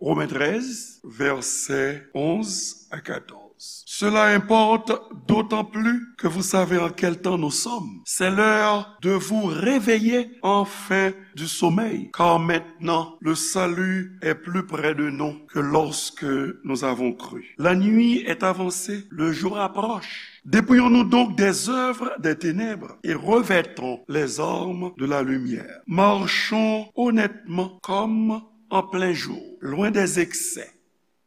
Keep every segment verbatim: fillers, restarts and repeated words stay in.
Romains treize, versets onze à quatorze. Cela importe d'autant plus que vous savez en quel temps nous sommes. C'est l'heure de vous réveiller enfin du sommeil, car maintenant le salut est plus près de nous que lorsque nous avons cru. La nuit est avancée, le jour approche. Dépouillons-nous donc des œuvres des ténèbres et revêtons les armes de la lumière. Marchons honnêtement comme en plein jour, loin des excès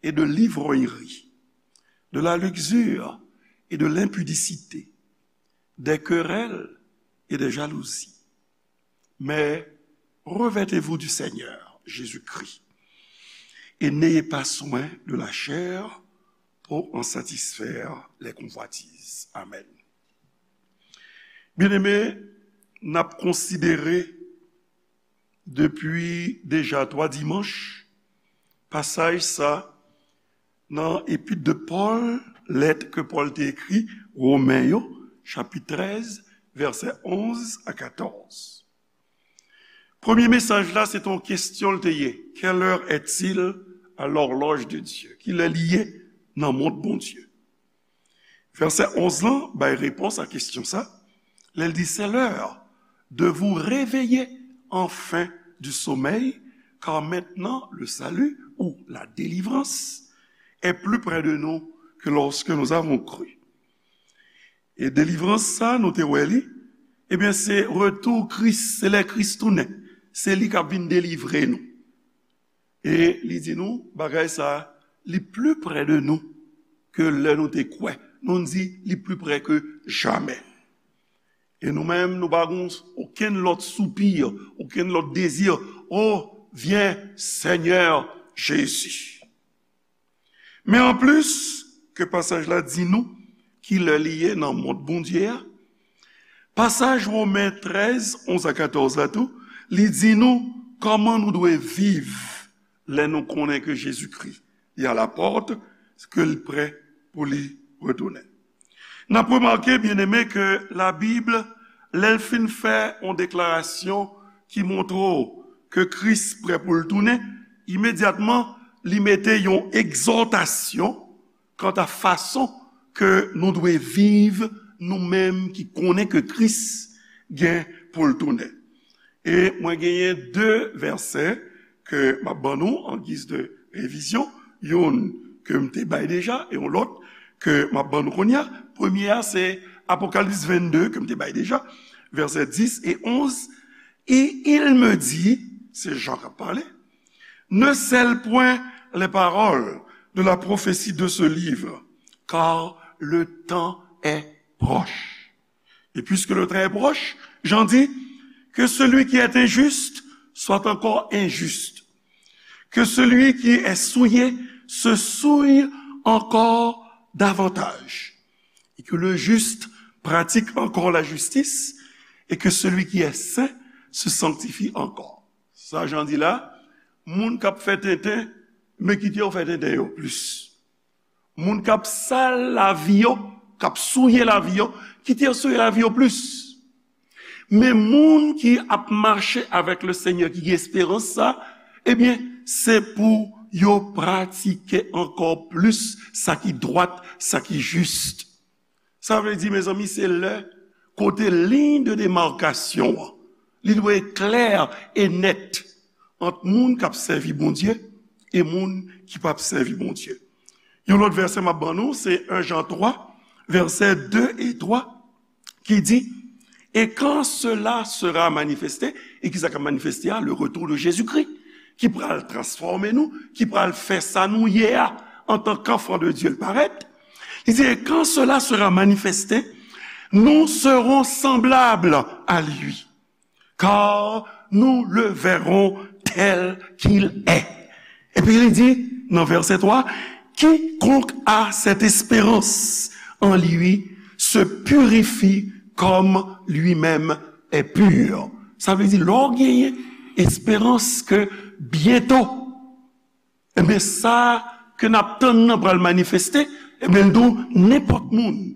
et de l'ivrognerie, de la luxure et de l'impudicité, des querelles et des jalousies. Mais revêtez-vous du Seigneur Jésus-Christ et n'ayez pas soin de la chair pour en satisfaire les convoitises. Amen. Byeneme, n ap konsidere depi deja twa dimanch pasaj sa nan epit de Pòl, lèt ke Pòl te ekri Women yo, chapit trèz, vèsè onz a katòz. Premye mesaj la, se te yon kesyon l te ye. Quelle heure est-il à l'horloge de Dieu? Kilè li ye nan mont Bondye? Vèsè onz lan bay repons a kesyon sa. Lè l di, c'est l'heure de vous réveiller enfin du sommeil, car maintenant le salut ou la délivrance est plus près de nous que lorsque nous avons cru. E delivrans sa, nou te wè li, ebyen, se retou Kris, se lè Kris tounen. Se li k ap vin delivre nou. E li di nou, bagay sa, li pli pre de nou ke lè nou te kwè. Nou di, li pli pre ke jamè. E nou menm, nou pa gen okenn lòt soupi, okenn lòt dezi. O, vyen, Senyè Jezi. Men anplis ke pasaj la di nou kilè li ye nan mond Bondye a, pasaj Women trèz, onz a katòz la tou, li di nou kòman nou dwe viv lè nou konnen ke Jezikri, li alapòt, ke li prè pou li retounen. N ap remake, byeneme, ke Labib, lè l fin fè yon deklarasyon ki montre w ke Kris prè pou l tounen, imedyatman, li mete yon egzòtasyon kanta fason ke nou dwe viv, nou menm ki konnen ke Kris gen pou l tounen. E mwen genyen de vèsè ke m ap ban nou an giz de revizyon, youn ke m te bay deja e yon lòt ke m ap ban nou kounye a. Premye a, se Apokalips vennde ke m te bay deja, vèsè dis e onz. Et il me dit, se Jan k ap pale, ne scelle point les paroles de la prophétie de ce livre, car le temps est proche. Et puisque le temps est proche, Jan di, que celui qui est injuste soit encore injuste, que celui qui est souillé se souille encore davantage, et que le juste pratique encore la justice, et que celui qui est saint se sanctifie encore. Sa Jan di la, moun k ap fè tenten, men kite yo fè tenten yo plis. Moun k ap sal lavi yo, k ap souye lavi yo, kite yo souye lavi yo plis. Men moun ki ap mache avèk le Senyè, ki gen esperans sa, ebyen, se pou yo pratike ankò plis sa ki dwat, sa ki jis. Sa vle di, mezanmi, se lè kote liy de demarkasyon an, li dwe klè e nèt ant moun k ap sèvi Bondye e moun ki p ap sèvi Bondye. Yon lòt vèsè m ap ban nou, se en Jan twa, vèsè de e twa, ki di, et quand cela sera manifesté, e kisa k ap manifeste a? Le retour de Jésus-Christ, ki pral transfòme nou, ki pral fè sa nou ye a, antan k anfan de Dye l parèt. Li di, et quand cela sera manifesté, nous serons semblables à lui, car nous le verrons tel qu'il est. Epi li di nan vèsè twa, quiconque a cette espérance en lui se purifie comme lui-même est pur. Sa vle di, lè w genyen esperans ke byento, ebyen, sa ke n ap tann nan pral manifeste, ebyen, l di w, nenpòt moun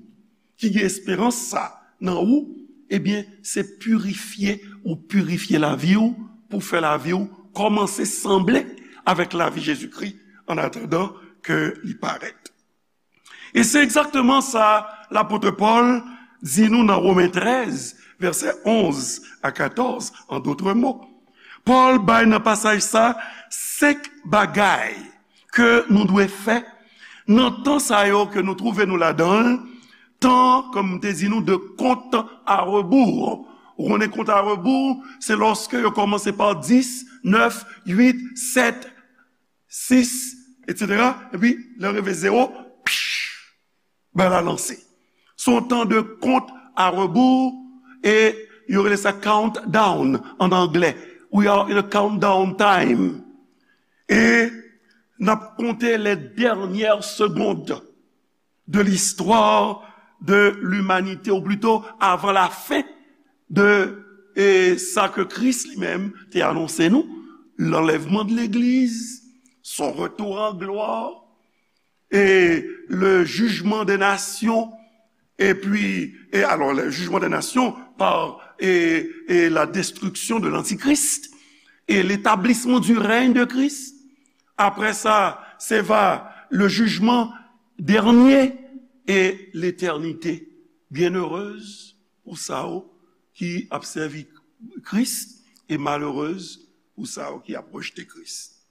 ki gen esperans sa nan ou, ebyen, se pirifye ou pirifye lavi w pou fè lavi w kòmanse sanble avèk lavi Jezikri an atandan ke li parèt. E se egzakteman sa lapot Pòl di nou nan Women trèz, vèsè onz a katòz, an dòt mo. Pòl bay nan pasaj sa senk bagay ke nou dwe fè nan tan sa yo ke nou twouve nou ladan l, tan, kòm m te di nou, de kont a rebou. Ou konnen kont a rebou, se lòske yo kòmanse pa dis, nèf, uit, sèt, sis, etsetera. Epi, lè yo rive zewo, psh, bagay la lanse. Se yon tan de kont a rebou, e yo rele sa countdown an anglè. We are in a countdown time. E n ap konte les dernières secondes de l'histoire de l'humanité, ou plito avan la fen de, e, sa ke Kris li menm te anonse nou, l'enlèvement de l'Église, son retour en gloire, et le jugement des nations, et puis, et alors, le jugement des nations par, et, et la destruction de l'Antichrist, et l'établissement du règne de Christ. Après ça, se va le jugement dernier et l'éternité. Byennerez pou sa yo ki ap sèvi Kris e malerez pou sa yo ki ap rejte Kris.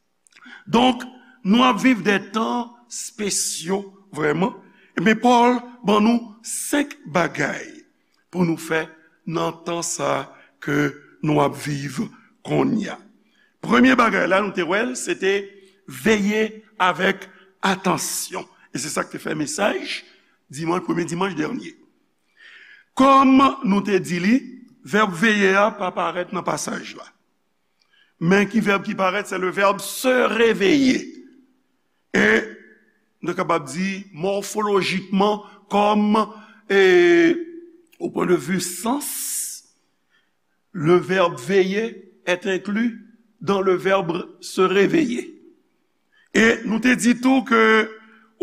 Donk, nou ap viv de tan spesyo, vrèman. Men Pòl ban nou senk bagay pou nou fè nan tan sa ke nou ap viv kounye a. Premye bagay la, nou te wè l, se te veye avèk atansyon. E se sa k te fè mesaj dimanch, premye dimanch dènye. Kòm nou te di li, vèb veye a pa parèt nan pasaj la. Men ki vèb ki parèt, se le verbe se réveiller. E nou kapab di mòfolojikman, kòm, e, au point de vue sens, le verbe veiller est inclus dans le verbe se réveiller. E nou te di tou ke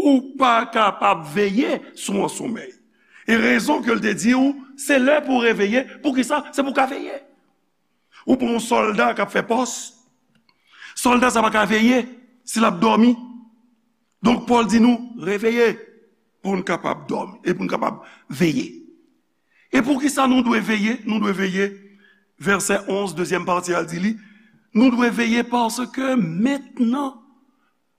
ou pa kapab veye si w an somèy. E rezon ke l te di w, se lè pou w reveye. Poukisa? Se pou w ka veye. Ou pran yon sòlda k ap fè pòs. Sòlda sa pa ka veye si l ap dòmi. Donk, Pòl di nou, reveye pou n kapab dòmi e pou n kapab veye. E poukisa nou dwe veye? Nou dwe veye, vèsè onz, dezyèm pati a di li, nou dwe veye paske mentnan,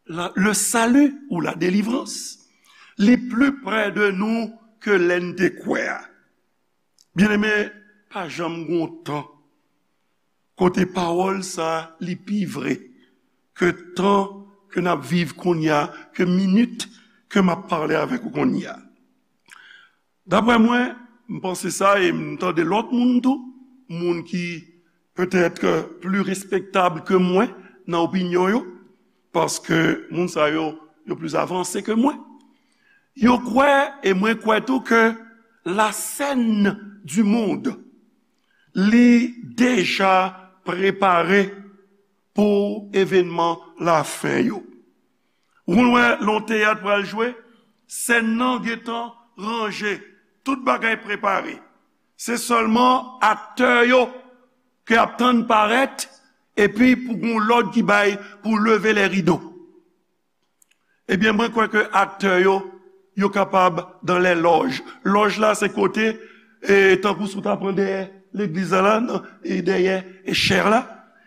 la, le salut ou la délivrance, li pli prè de nou ke lè n te kwè a. Byeneme, pa janm gen yon tan kote pawòl sa a li pi vre ke tan ke n ap viv kounye a, ke minit ke m ap pale avèk ou kounye a. Daprè mwen, m panse sa e m tande lòt moun tou, moun ki petèt pli respektab ke mwen nan opinyon yo, paske moun sa yo, yo pli avanse ke mwen. Yo kwè, e mwen kwè tou, ke la scène du monde, li deja prepare pou evènman lafen yo. Ou konn wè lè yon teyat pral jwe, sèn nan gentan ranje, tout bagay prepare. Se sèlman aktè yo ke ap tann parèt, epi pou gon lòd ki bay pou leve lè rido. Ebyen, mwen kwè ke aktè yo, yo kapab dans les loges. Lòj la, se kote, e, tankou si w ta pran dèyè legliz la, la, nan, e, dèyè, e, chè la.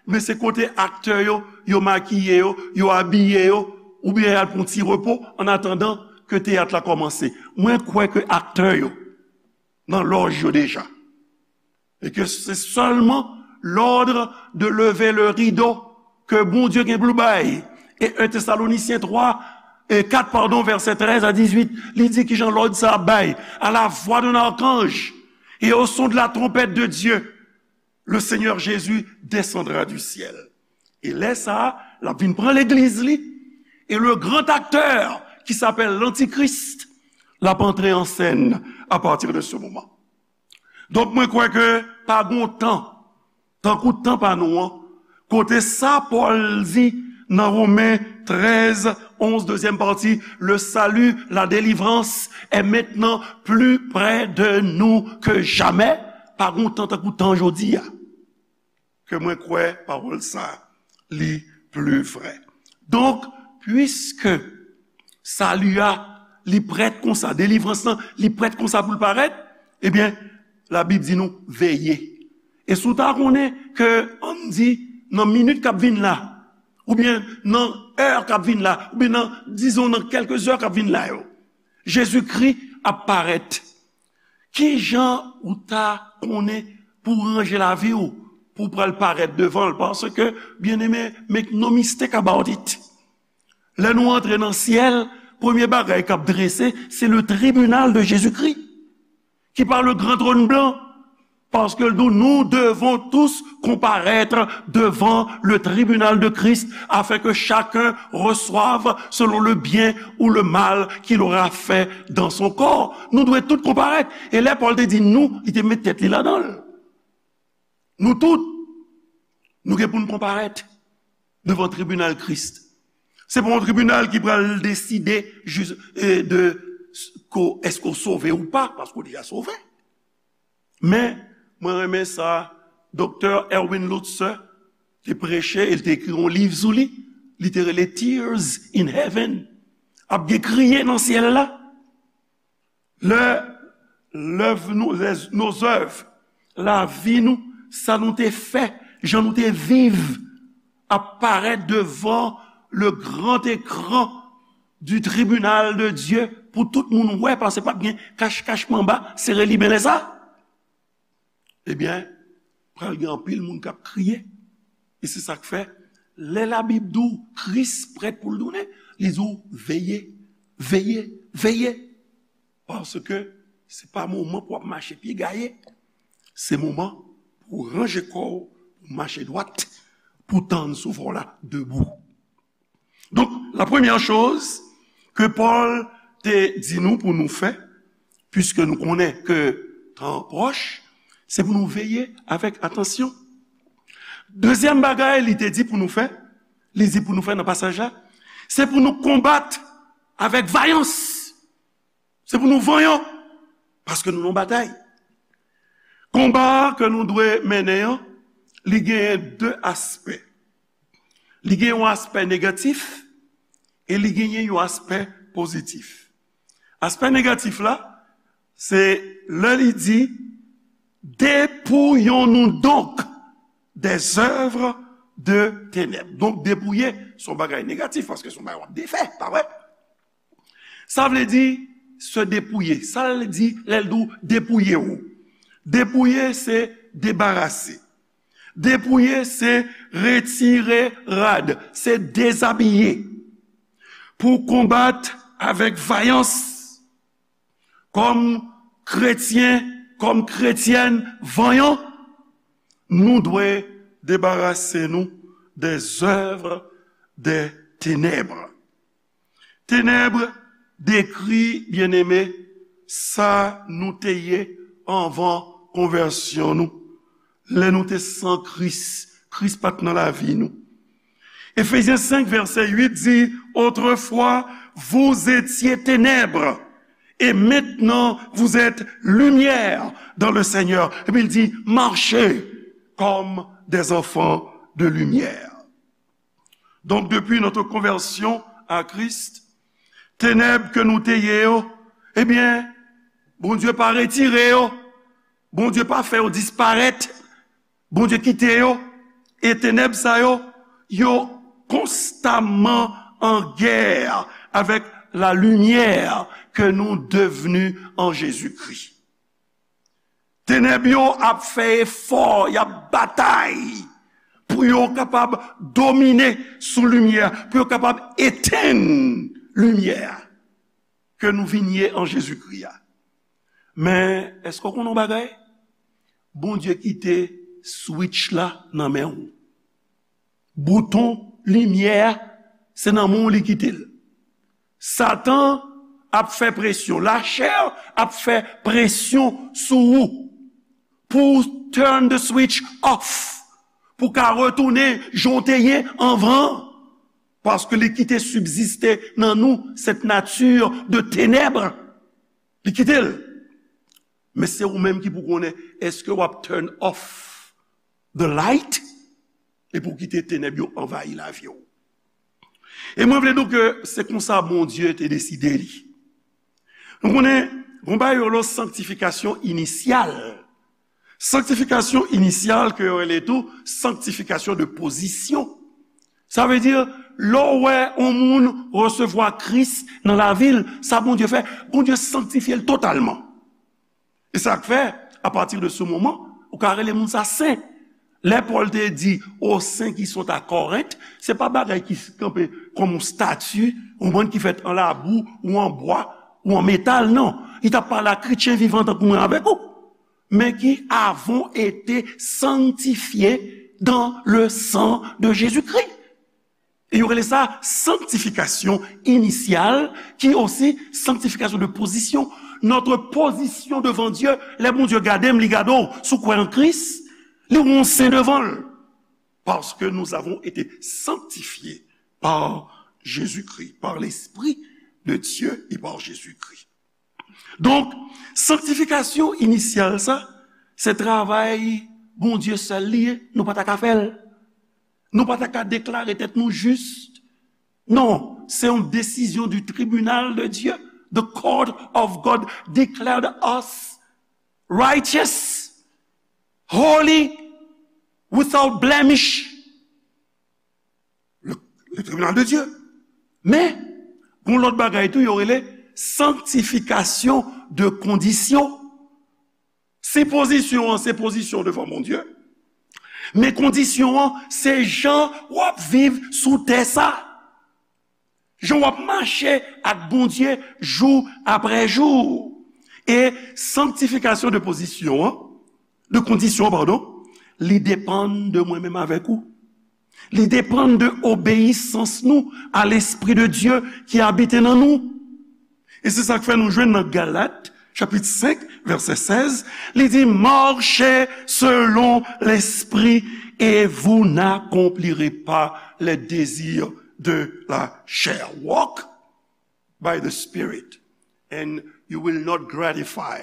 Men se kote aktè yo, yo makiye yo, yo abiye yo, oubyen y al pran ti repo, an atandan ke teyat la kòmanse. Mwen kwè ke aktè yo nan lòj yo deja. E ke se sèlman l'ordre de lever le rideau ke Bondye gen pou l bay. E un Thessaloniciens trois, e kat, padon, vèsè trèz a dizuit, li di kijan lòd sa ap bay. À la voix d'un archange et au son de la trompette de Dieu, le Seigneur Jésus descendra du ciel. E lè sa a, l ap vin pran legliz li. E le grand acteur qui s'appelle l'Antichrist, l ap antre an sèn à partir de ce moment. Donk, mwen kwè ke pa gon tan, tankou tan pa nou an, kote sa Pòl di nan Women trèz, onz, dezyèm pati, le salut, la délivrance est maintenant plus près de nous que jamais. Pa gon tan tankou tan jodi a. Ke mwen kwè pawòl sa a, li pli vrè. Donk, piske sali a, li prèt konsa, delivrans lan, li prèt konsa pou l parèt, ebyen, Labib di nou, veye. E si w ta konnen ke, ann di, nan minit k ap vin la, oubyen nan è k ap vin la, oubyen nan, dizon, nan kèlke zè k ap vin la yo, Jezikri ap parèt. Ki jan ou ta konnen pou w ranje lavi w, pou w pral parèt devan l? Paske, byeneme, make no mistake about it. Lè nou antre nan syèl, premye bagay k ap drese, se le tribunal de Jésus-Christ, qui par le grand trône blanc, parce que nous, nous devons tous comparaître devant le tribunal de Christ, afin que chacun reçoive selon le bien ou le mal qu'il aura fait dans son corps. Nou dwe tout konparèt. E lè Pòl te di nou, li te met tèt li ladan l. Nou tout, nou gen pou n konparèt devan tribinal Kris. Se pa yon tribinal ki pral deside jis, e, de s-, ko, èske w sove ou pa, paske w deja sove. Men, mwen renmen sa, Doktè Erwin Lutzer te preche, e l te ekri yon liv sou li, li te rele Tears in Heaven. Ap gen kriye nan syèl la. Lè lèv nou, lè, nos œuvres, lavi nou, sa nou te fè, jan nou te viv, ap parèt devan le grand écran du tribunal de Dieu pou tout moun wè, paske p ap gen kach-kach manba, sere limen lè sa. Ebyen, pral gen anpil moun k ap kriye. E se sa k fè, lè Labib di w Kris prèt pou l tounen, li di w veye, veye, veye. Paske se pa moman pou w ap mache pye gaye. Se moman pou w ranje kò w, pou w mache dwat, pou w tann souvwa w la debou. Donk, la premyè choz ke Pòl te di nou pou nou fè, piske nou konnen ke tan an pwòch, se pou nou veye avèk atansyon. Dezyèm bagay li te di pou nou fè, li di pou nou fè nan pasaj la, se pou nou konbat avèk vayans. Se pou nou vanyan, paske nou nan batay. Konba ke nou dwe mennen an, li genyen de aspè. Li gen yon aspè negatif e li genyen yon aspè pozitif. Aspè negatif la, se lè li di, dépouillons-nous donc des œuvres de ténèbres. Donk, depouye, se yon bagay negatif, paske se yon bagay w ap defè, pa vre? Sa vle di se depouye. Sa l di lè l di w depouye w? Depouye se debarase. Depouye se retire rad, se dezabiye. Pou konbat avèk vayans, kòm kretyen, kòm kretyèn vanyan, nou dwe debarase nou des œuvres des ténèbres. Tenèb dekri, byeneme, sa nou te ye anvan konvèsyon nou. Lè nou te san Kris, Kris pa t nan lavi nou. Efezyen senk, vèsè uit di, autrefois, vous étiez ténèbres, et maintenant, vous êtes lumière dans le Seigneur. Epi l di, marchez comme des enfants de lumière. Donk, depi notre conversion à Christ, tenèb ke nou te ye yo, ebyen, Bondye pa retire yo. Bondye pa fè yo disparèt. Bondye kite yo. E tenèb sa yo, yo konstamman an gè avèk la limyè ke nou devni an Jezikri. Tenèb yo ap fè efò, y ap batay pou yo kapab domine sou limyè, pou yo kapab etenn limyè ke nou vin ye an Jezikri a. Men, èske w konn yon bagay? Bondye kite switch la nan men w. Bouton limyè a, se nan men w li kite l. Satan ap fè presyon, lachè ap fè presyon sou ou pou w turn the switch off, pou w ka retounen jan w te ye anvan, paske li kite sibziste nan nou cette nature de ténèbres. Li kite l. Men se ou menm ki pou konnen, èske w ap turn off the light epi w kite tenèb yo anvayi lavi w? E mwen vle di w ke se konsa Bondye te deside li. Nou konnen, gon bagay yo rele sanktifikasyon inisyal. Sanktifikasyon inisyal ke yo rele tou sanktifikasyon de pozisyon. Sa vle di, lè w wè yon moun resevwa Kris nan lavi l, sa Bondye fè, Bondye sanktifye l totalman. E sa k fè, apati de se moman, ou ka rele moun sa sen. Lè Pòl te di, aux saints qui sont à Corinthe, se pa bagay ki kanpe kòm yon estati, yon bann ki fèt an labou, ou an bwa, ou an metal, non. Li t ap pale a kretyen vivan tankou mwen avèk ou, men qui avons été sanctifiés dans le sang de Jésus-Christ. E yo rele sa sanktifikasyon inisyal, ki osi sanktifikasyon de pozisyon. Notre position devant Dieu, lè Bondye gade m, li gade w, si w kwè an Kris, li wè w sen devan l. Parce que nous avons été sanctifiés par Jésus-Christ, par l'Esprit de Dieu et par Jésus-Christ. Donk, sanktifikasyon inisyal sa, se travay Bondye sèl li ye, nou pa ta ka fè l. Nou pa ta ka deklare tèt nou jis. Non, se yon desizyon du tribunal de Dieu. The court of God declared us righteous, holy, without blemish. Le, le tribunal de Dieu. Men, gon lòt bagay tou, yo rele sanktifikasyon de kondisyon. Si pozisyon an se pozisyon devan Bondye, men kondisyon an se jan w ap viv sou tè sa. Jan w ap mache ak Bondye jou apre jou. E sanktifikasyon de pozisyon an, de kondisyon, padon, li depann de mwen menm avèk ou. Li depann de obeyisans nou a Lespri de Dye ki abite nan nou. E se sa k fè nou jwenn nan Galat, chapit senk, vèsè sèz, li di, marchez selon l'esprit et vous n'accomplirez pas les désirs de la chair. Walk by the Spirit, and you will not gratify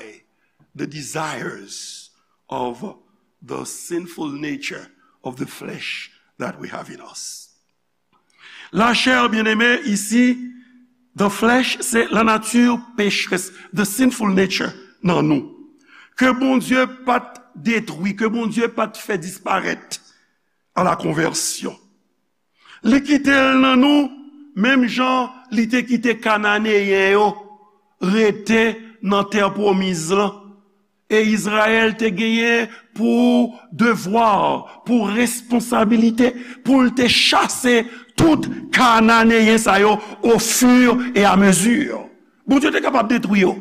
the desires of the sinful nature of the flesh that we have in us. La chair, bien-aimé, isi, the flesh, se la nature pécheresse, the sinful nature nan nou. Ke Bondye pa t detwi, ke Bondye pa t fè disparèt a la konvèsyon. Li kite l nan nou, menm jan li te kite Kananeyen yo rete nan tè pwomiz lan. E Izrayèl te genyen pou devwa, pou responsabilite, pou l te chase tout Kananeyen sa yo au fur et à mesure. Bondye te kapab detwi yo.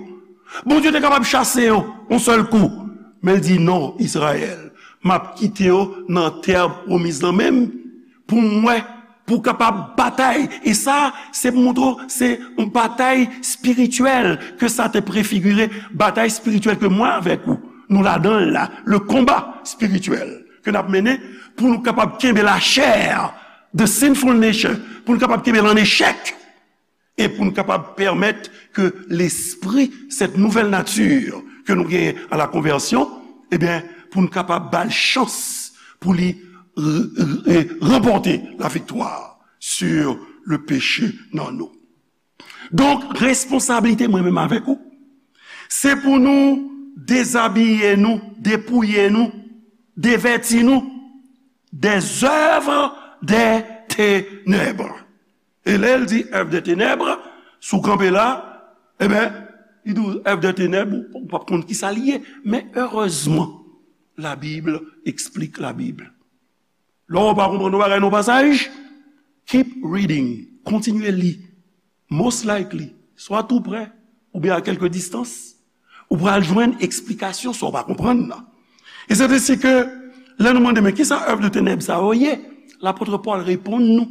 Bondye te kapab chase yo yon sèl kou. Men l di, non, Izrayèl, m ap kite yo nan tè pwomiz lan menm pou m wè, pou w kapab batay. E sa, se pou montre w, se yon batay espirityèl ke sa te prefigire, batay espirityèl ke mwen avèk ou, nou ladan l la, le konba espirityèl ke n ap mennen pou nou kapab kenbe la chair, the sinful nature, pou nou kapab kenbe l an echèk. E pou n kapab pèmèt ke lespri, cette nouvelle nature ke nou genyen a la konvèsyon, ebyen, pou n kapab ba l chans pou li r-, r-, ranpòte la viktwa sur le péché nan nou. Donk, responsablite mwen menm avèk ou, se pou nou dezabiye nou, depouye nou, devèti nou des œuvres des ténèbres. E lè l di œuvres des ténèbres, si w kanpe la, ebyen, li di w œuvres des ténèbres, ou, ou p ap konn kisa li ye. Men erezman, la Bible explique la Bible. Lè w pa konprann yon bagay nan yon pasaj, keep reading, kontinye li. Most likely, swa tou prè, oubyen a kèlke distans, ou pral jwenn eksplikasyon sa w pa konprann nan. E se te si ke, lè nou mande, men kisa œuvres de ténèbres sa yo ye? Lapòt Pòl reponn nou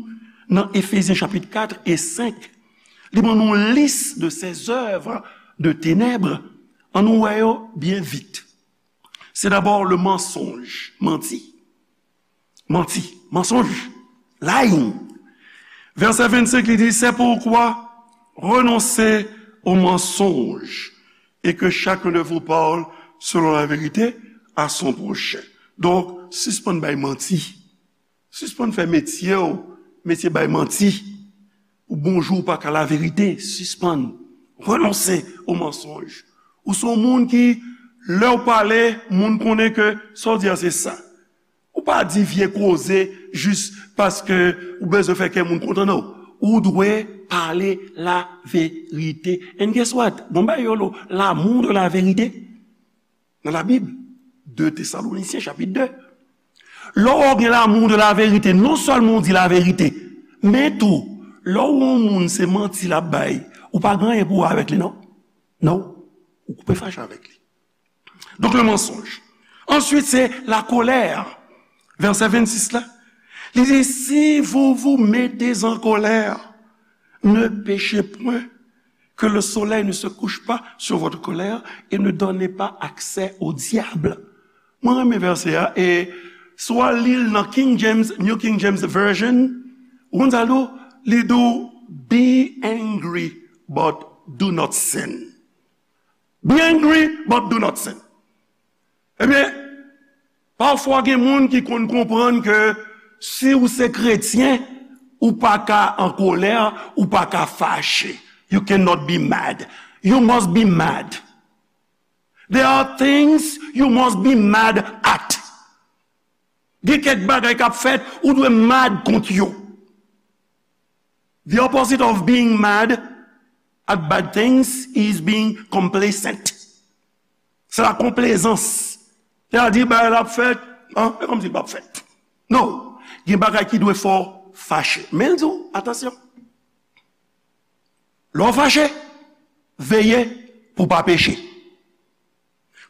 nan Efezyen chapit kat e senk. Li ban nou lis de ces œuvres de ténèbres. Ann nou wè yo byen vit. Se dabò le mensonge, manti. Manti, mensonge, lying. Vèsè vennsenk, li di, c'est pourquoi renoncez au mensonge et que chacun de vous parle selon la vérité à son prochain. Donk, sispann bay manti. Sispann fè metye w, metye bay manti. Ou bonjou pa ka laverite, sispann, renonse o mansonj. Ou se yon moun ki, lè w pale, moun konnen ke sa w di a se sa. Ou pa di vye koze jis paske ou bezwen fè kè moun kontan, non. Ou dwe pale laverite. And guess what? Bon, ba yo lo, l'amour de la vérité. Nan Labib, de Tesalonisyen, chapit de. Lè w gen l'amour de la vérité, non sèlman w di laverite, men tou, lè w wè yon moun se manti l ap bay, ou pa gen anyen pou w wè avèk li, non. Non. Ou koupe fache avèk li. Donk, le mensonge. Answit, se la colère. Vèsè vennsis la. Li di, si vous vous mettez en colère, ne péchez point, que le soleil ne se couche pas sur votre colère, et ne donnez pas accès au diable. Mwen renmen vèsè a, e si w al li l nan King James, New King James Version, ou konn sa l di w? Li di w, be angry, but do not sin. Be angry, but do not sin. Ebyen, pafwa gen moun ki konn konprann ke si ou se kretyen, ou pa ka an kolè, ou pa ka fache. You cannot be mad. You must be mad. There are things you must be mad at. Gen kèk bagay k ap fèt, ou dwe mad kont yo. The opposite of being mad at bad things is being complacent. Se la konplezans. Sètadi, bagay la ap fèt, an, e kòmsi l p ap fèt. Non, gen bagay ki dwe fè w fache. Men l di w, atansyon. Lè w fache, veye pou w pa peche.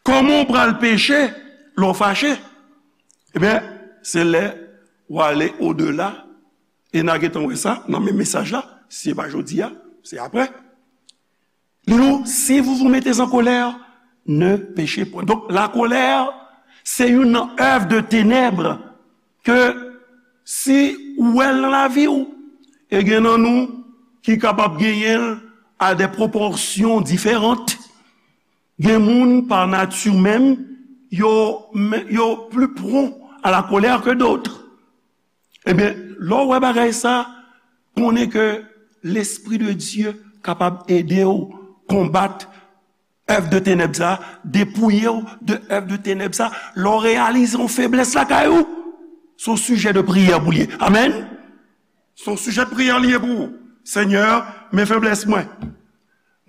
Kòman w pral peche lè w fache? Ebyen, se lè w ale odela, e n a gentan wè sa nan menm mesaj la, si se pa jodi a, se apre. Li di w, si vous vous mettez en colère, ne péchez point. Donk, lakolè, se youn nan èv de tenèb ke si ou wè l nan lavi w, e gen nan nou ki kapab genyen l a de pwopòsyon diferan. Gen moun, pa nati menm, yo, yo plus prompt à la colère que d'autres. Ebyen, lè w wè bagay sa, konnen ke Lespri de Dye kapab ede w konbat èv de tenèb sa, depouye w de èv de tenèb sa. Lè w reyalize yon feblès lakay ou, se yon sijè de priyè pou l ye. Amèn. Se yon sijè de priyè li ye pou ou. Senyè, men feblès mwen.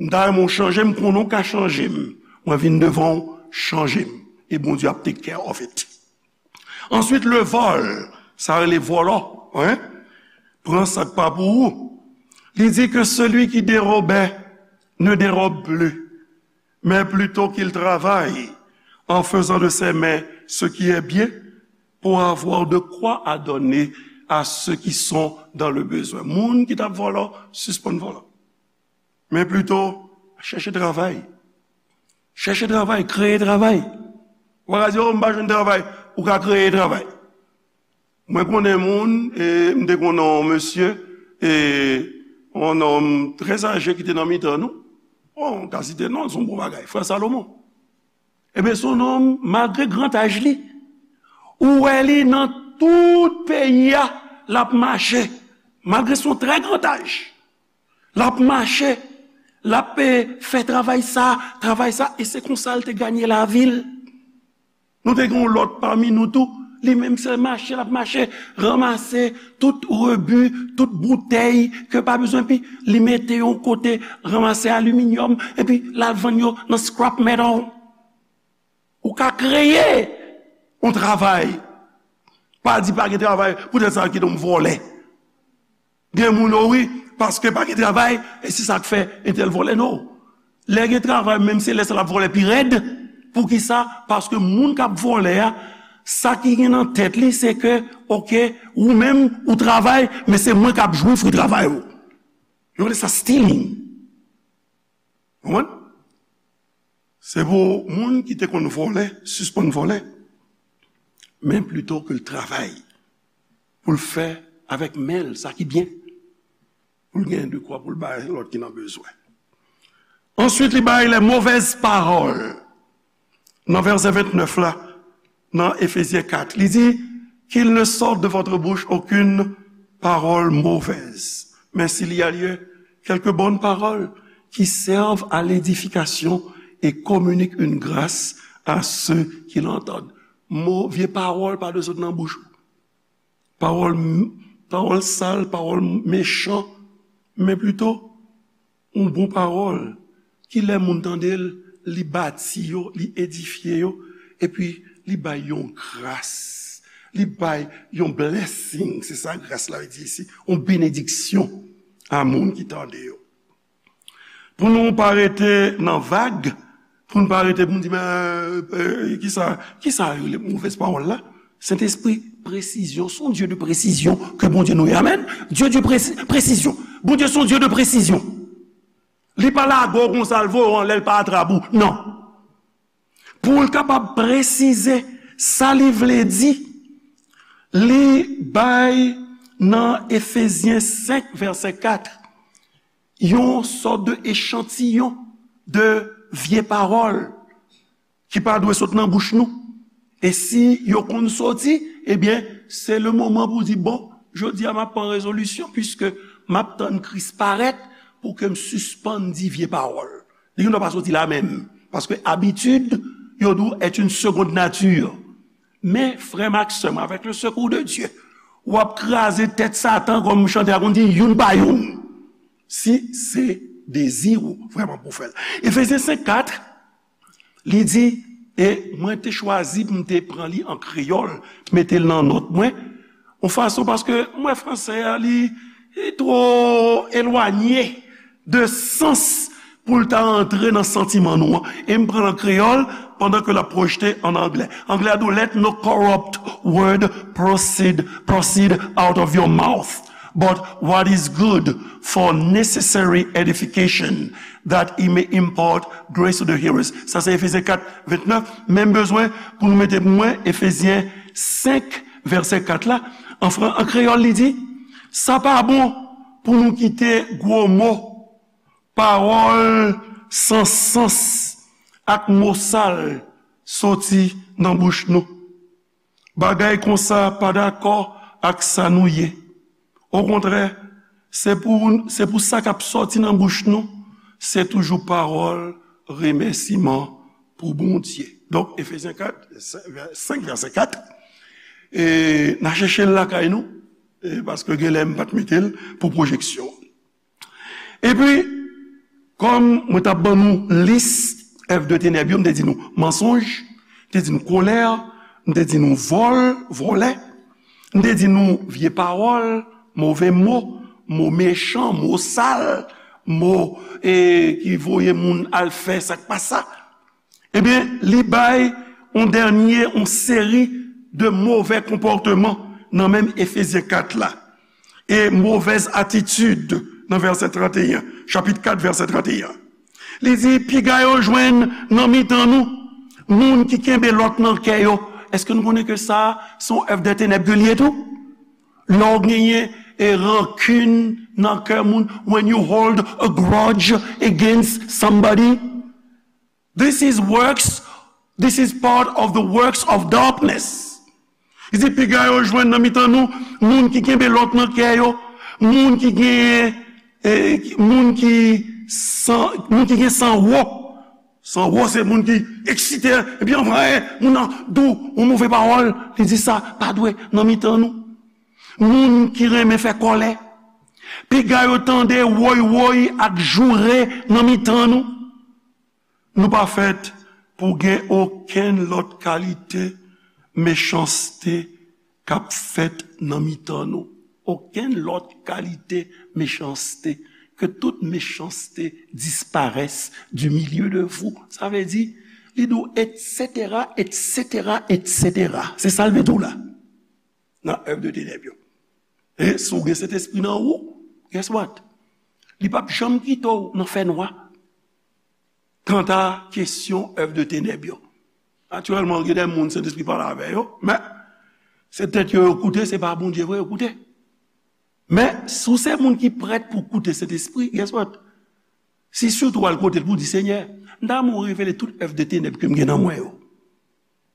M ta renmen w chanje m, konnen w ka chanje m. Mwen vin devan w, chanje m. E Bondye ap take care of it. Answit, le vol, sa rele vòlò, wi. Pran sa k pa pou ou. Li di que celui qui dérobait ne dérobe plus, mais plutôt qu'il travaille en faisant de ses mains ce qui est bien pour avoir de quoi à donner à ceux qui sont dans le besoin. Moun ki t ap vòlò, sispann vòlò. Men plito, chèche travay. Chèche travay, kreye travay. Ou pa ka di, "Oh, m pa jwenn travay." Ou ka kreye travay. Mwen konnen moun, e m te konnen yon mesye, e yon nonm trè aje ki te nan mitan nou. Bon, m ka site non, se yon bon bagay, frè Salomon. Ebyen, se yon nonm, malgre gran aj li, ou wè li nan tout peyi a, l ap mache. Malgre se yon trè gran aj, l ap mache, l ap, e, fè travay sa, travay sa, e se konsa l te ganye lavi l. Nou te gen yon lòt pami nou tou, li menm se mache, l ap mache, ranmase tout rebi, tout boutèy ke pa bezwen pi, li mete yon kote, ranmase aliminyòm, epi l al vann yo nan scrap metal. Ou ka kreye yon travay. Pa di pa gen travay, poutèt sa kite m vòlè. Gen moun, o wi, paske pa gen travay, e se sa k fè entèl vòlè, non. Lè gen travay, menm se lè sa l ap vòlè pi rèd. Poukisa? Paske moun k ap vòlè a, sa ki gen nan tèt li, se ke, oke, ou menm, ou travay, men se mwen k ap jwi fwi travay ou. Yo rele sa stealing. Konprann? Se pou moun ki te konn vòlè, sispann vòlè. Men plito ke l travay pou l fè avèk men l sa ki byen, pou l gen dekwa pou l bay lòt ki nan bezwen. Answit, li bay les mauvaises paroles. Nan vèsè vennèf la, nan Efezyen kat, li di, qu'il ne sorte de votre bouche aucune parole mauvaise, Mais s'il y a lieu, quelques bonnes paroles qui servent à l'édification et communiquent une grâce à ceux qui l'entendent. Mo, vye pawòl pa dwe sot nan bouch ou. Pawòl, pawòl sal, pawòl mechan, men plito yon bon pawòl ki lè moun tande l, li bati yo, li edifye yo, epi li bay yon gras, li bay yon blessing, se sa gras la vle di isi, yon benediksyon a moun ki tande yo. Pou nou pa rete nan vag, pou nou pa rete pou nou di, men, euh, kisa, kisa yo rele movèz pawòl la? Sentespri, presizyon, se yon Dye de presizyon ke Bondye nou ye. Amèn. Dye de presi-, presizyon. Bondye se yon Dye de presizyon. Li pa lage w konsa, l voye w anlè, l pa atrap ou. Non. Pou l kapab presize sa li vle di, li bay nan Efezyen senk, vèsè kat, yon sòt de echantiyon de vye pawòl ki pa dwe sot nan bouch nou. E si yo konn soti, ebyen, se le moman pou di, bon, jodi a m ap pran rezolisyon, piske m ap tann Kris parèt pou ke m sispann di vye pawòl. Li gendwa pa soti la menm, paske abitid, yo di w, est une seconde nature. Men, frè m ak sè m, avec le secours de Dieu, w ap kraze tèt Satan, kòm chantè a konn di, youn pa youn. Si se dezi w vrèman pou fè l. Efezyen senk kat, li di, e mwen te chwazi pou m te pran li an kreyòl, mete l nan nòt mwen, yon fason, paske mwen, fransè a, li, li twò elwanye de sans pou l ta antre nan santiman nou an. E m pran l an kreyòl pandan ke l ap pwojte an anglè. Anglè a di w, let no corrupt word proceed, proceed out of your mouth, but what is good for necessary edification, that it may impart grace to the hearers. Sa se Efezyen kat vennèf, men m bezwen pou nou mete pou mwen Efezyen senk, vèsè kat la. An fran-, an kreyòl, li di, sa pa bon pou nou kite gwo mo, pawòl san sans ak mo sal soti nan bouch nou. Bagay konsa pa dakò ak sa nou ye. Okontrè, se pou, se pou sa k ap sòti nan bouch nou, se toujou pawòl remèsiman pou Bondye. Donk, Efezyen kat, senk, vè-, senk, vèsè kat, e n a chèche l lakay nou, e paske genlè m pa t mete l pou pwojeksyon. Epi, kòm mwen t ap ban nou lis èv de tenèb yo, m te di nou mansonj, m te di nou kolè, m te di nou vòl, vòlè, m te di nou vye pawòl, move mo, mo mechan, mo sal, mo, e, ki voye moun al fè sa k pa sa. Ebyen, li bay yon dènye, yon seri de movè konpòteman nan menm Efezyen kat la. E movèz atitid nan vèsè trannteyen, chapit kat, vèsè trannteyen. Li di, piga yo jwenn nan mitan nou, moun ki kenbe lòt nan kè yo. Èske nou konnen ke sa, se yon èv de tenèb ke l ye tou? Lè w genyen, e, rankin nan kè moun, when you hold a grudge against somebody, this is works, this is part of the works of darkness. Li di, piga yo jwenn nan mitan nou, moun ki kenbe lòt nan kè yo, moun ki gen, e, moun ki san, moun ki gen san wo. San wo se moun ki eksite, epi anvan, e, moun nan di w yon move pawòl, li di sa pa dwe nan mitan nou. Moun ki renmen fè kòlè, piga yo tande woy woy ak joure nan mitan nou. Nou pa fèt pou gen okenn lòt kalite mechanste k ap fèt nan mitan nou. Okenn lòt kalite mechanste. Que toute méchanceté disparaisse du milieu de vous. Sa vle di, li di w, et cetera, et cetera, et cetera. Se sa l vle di w la. Nan èv de tenèb yo. E si w gen Sentespri nan ou, guess what? Li p ap janm kite w nan fènwa. Kanta kesyon èv de tenèb yo, natirèlman, gen de moun Sentespri pale avè yo, men se tèt yo yo koute, se pa Bondye vre yo koute. Men, si w se moun ki prèt pou koute Sentespri, guess what? Si sitou w al kote l pou di, Senyè, m ta renmen w revele tout èv de tenèb ke m gen nan mwen yo.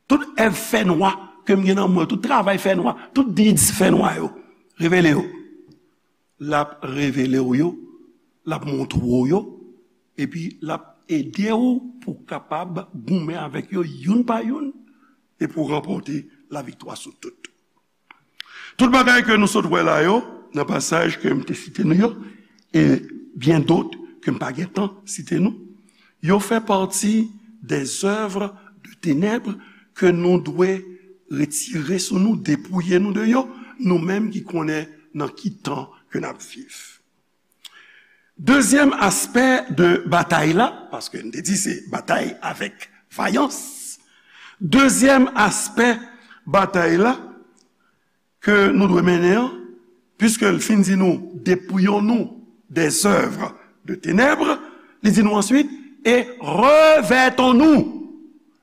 Tout èv fènwa ke m gen nan mwen yo, tout travay fènwa, tout deeds fènwa yo, revele yo. L ap revele w yo, l ap montre w yo, epi l ap ede w pou w kapab goumen avèk yo youn pa youn, e pou w ranpòte laviktwa sou tout. Tout bagay ke nou sot wè la yo, nan pasaj ke m te site nou yo, e byen dot ke m pa gen tan site nou, yo fè pati des œuvres de ténèbres ke nou dwe retire sou nou, depouye nou de yo, nou menm ki konnen nan ki tan ke n ap viv. Dezyèm aspè de batay la, paske n te di se batay avèk vayans. Dezyèm aspè batay la ke nou dwe mennen an, piske l fin di nou, dépouillons-nous des œuvres de ténèbres, li di nou answit, et revêtons-nous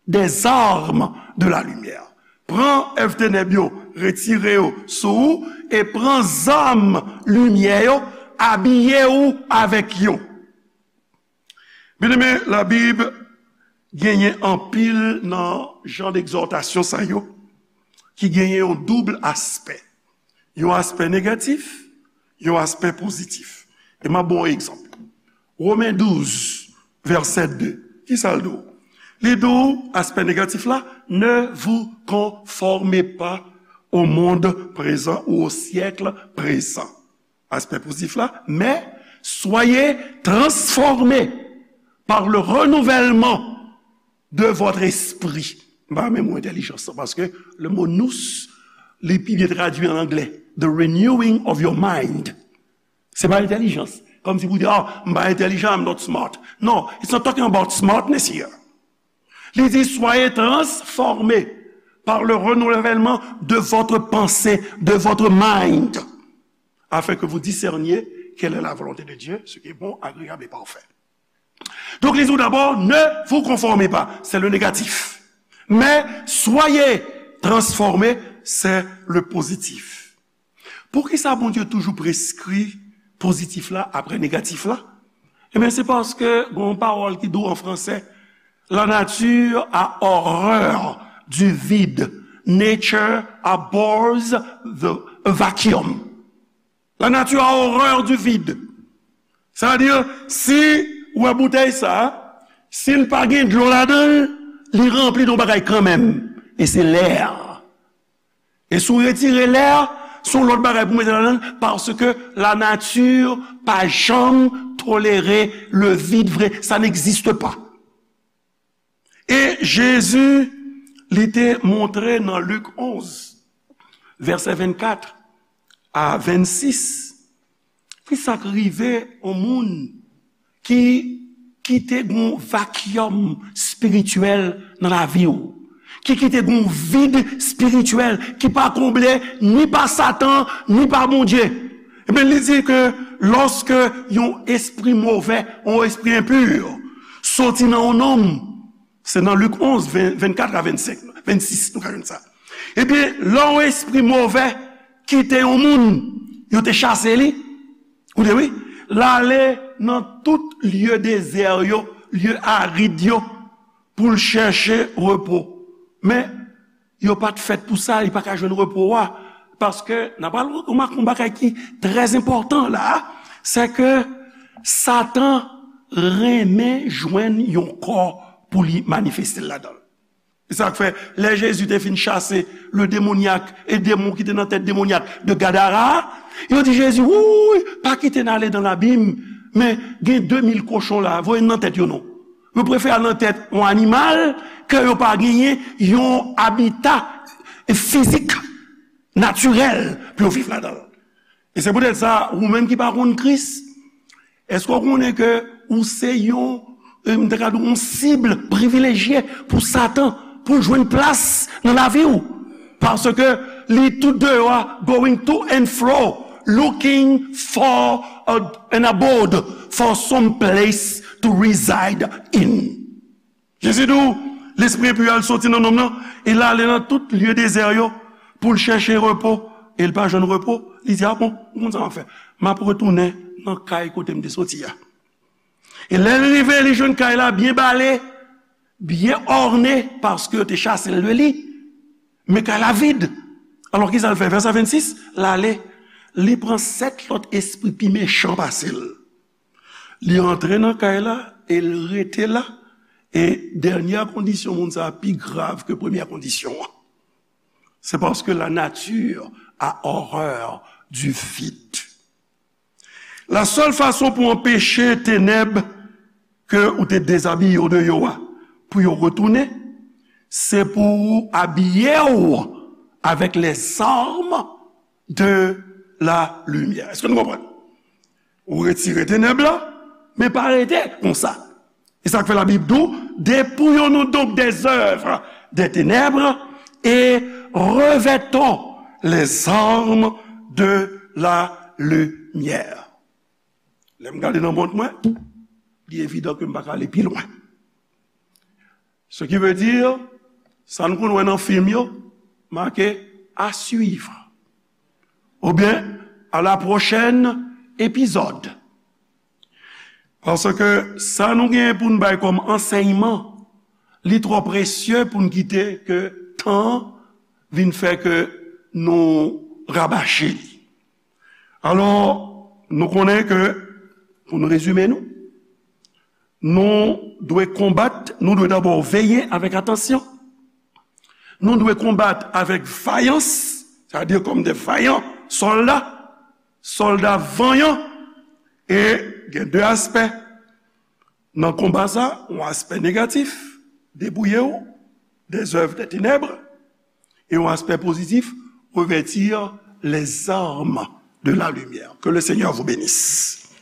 des armes de la lumière. Pran èv tenèb yo, retire yo sou ou, e pran zam limyè yo, abiye w avèk yo. Byeneme, Labib genyen anpil nan jan d'egzòtasyon sa yo ki genyen yon doub aspè. Yon aspè negatif, yon aspè pozitif. E m ap ba w yon egzanp. Women douz, vèsè de. Kisa l di w? Li di w, aspè negatif la, ne vous conformez pas au monde présent ou au siècle présent. Aspè pozitif la, mais soyez transformés par le renouvellement de votre esprit. M pa renmen mo entèlijans lan, paske le mo nous, li pi byen tradui an anglè. The renewing of your mind. Se pa entèlijans. Kòmsi pou di, ah, m pa entèlijan, I'm not smart. No, it's not talking about smartness here. Li di, soyez transformés par le renouvellement de votre pensée, de votre mind, afin que vous discerniez quelle est la volonté de Dieu, ce qui est bon, agréable et parfait. Donc, il dit d'abord, ne vous conformez pas, c'est le négatif. Mais soyez transformés, c'est le positif. Poukisa Bondye toujou preskri pozitif la apre negatif la? Ebyen, se paske gen yon pawòl ki di w an fransè, la nature a horreur du vide. Nature abhors the vacuum. La nature a horreur du vide. Sa vle di, si w wè boutèy sa, si l pa gen dlo ladan l, li ranpli de yon bagay kanmenm. E se lè. E si w retire lè, se yon lòt bagay pou mete ladan l, paske la nature pa janm tolere le vide vre, ça n'existe pas. E Jezi, li te montre nan Lik onz, vèsè vennkat a vennsis, ki sa k rive yon moun ki kite gon vakyòm espirityèl nan lavi w, ki kite gon vid espirityèl ki pa konble ni pa Satan, ni pa Bondye. Ebyen, li di ke lòske yon espri movè, yon espri enpi, soti nan yon nonm, se nan Lik onz, ven, vennkat a vennsenk, vennsis, nou ka jwenn sa. Ebyen, lè yon espri movè kite yon moun, yo te chase li, ou te wi, l ale nan tout lye dezè yo, lye arid yo, pou l chèche repo. Men, yo pa t fèt pou sa, li pa ka jwenn repo a. Paske, n ap pral remake yon bagay ki trè enpòtan la, se ke Satan renmen jwenn yon kò pou li manifeste l ladan l. Se sa k fè, lè Jezi te fin chase le démoniaque, e demon ki te nan tèt demonyak de Gadara a, yo di Jezi, wouy, pa kite n ale nan labim, men gen de mil kochon la, voye n nan tèt yo non. Yo prefere al nan tèt yon animal ke yo pa genyen yon abita fizik, natirèl, pou yo viv ladan l. E se poutèt sa, ou menm ki pa konn Kris, èske w konnen ke ou se yon, e, m ta ka di w, yon sib privilejye pou Satan, pou l jwenn plas nan lavi w? Paske li tout deyò a, going to and fro, looking for a, an abode, for some place to reside in. Jezi di w, lespri enpi a al soti nan nonm nan, e l ale nan tout lye dezè yo pou l chèche repo, e l pa jwenn repo. Li di, a bon, ou konn sa m ap fè? M ap retounen nan kay kote m te soti a. E lè l rive, li jwenn kay la byen bale, byen òne, paske yo te chase l de li. Men kay la vid. Alò, kisa l fè? Vèsè vennsis, l ale, li pran sèt lòt espri pi mechan pase l. Li antre nan kay la e l rete la. E dènyè kondisyon moun sa a pi grav ke premyè kondisyon an. C'est parce que la nature a horreur du vide. La sèl fason pou anpeche tenèb ke ou te dezabiye yo deyò a, pou yo retounen, se pou ou abiye w avèk les armes de la lumière. Èske nou konprann? Ou retire tenèb la, men pa rete konsa. E sa k fè Labib di w, dépouillons-nous donc des œuvres des ténèbres et revêtons les armes de la lumière. Lè m gade nan mont mwen, li evidan ke m pa ka ale pi lwen. Ce qui veut dire, sa nou konn wè nan fim yo, make à suivre. Oubyen, à la prochaine épisode. Paske sa nou genyen pou n bay kòm ansèyman, li twò presye pou n kite ke tan vin fè ke nou rabache li. Alò, nou konnen ke, pou n rezime nou, nou dwe konbat, nou dwe dabò veye avèk atansyon. Nou dwe konbat avèk vayans, sètadi kòm de vayan sòlda, sòlda vanyan, e gen de aspè nan konba sa, yon aspè negatif, dépouillez-vous des œuvres des ténèbres, e yon aspè pozitif, revêtir les armes de la lumière. Que le Seigneur vous bénisse.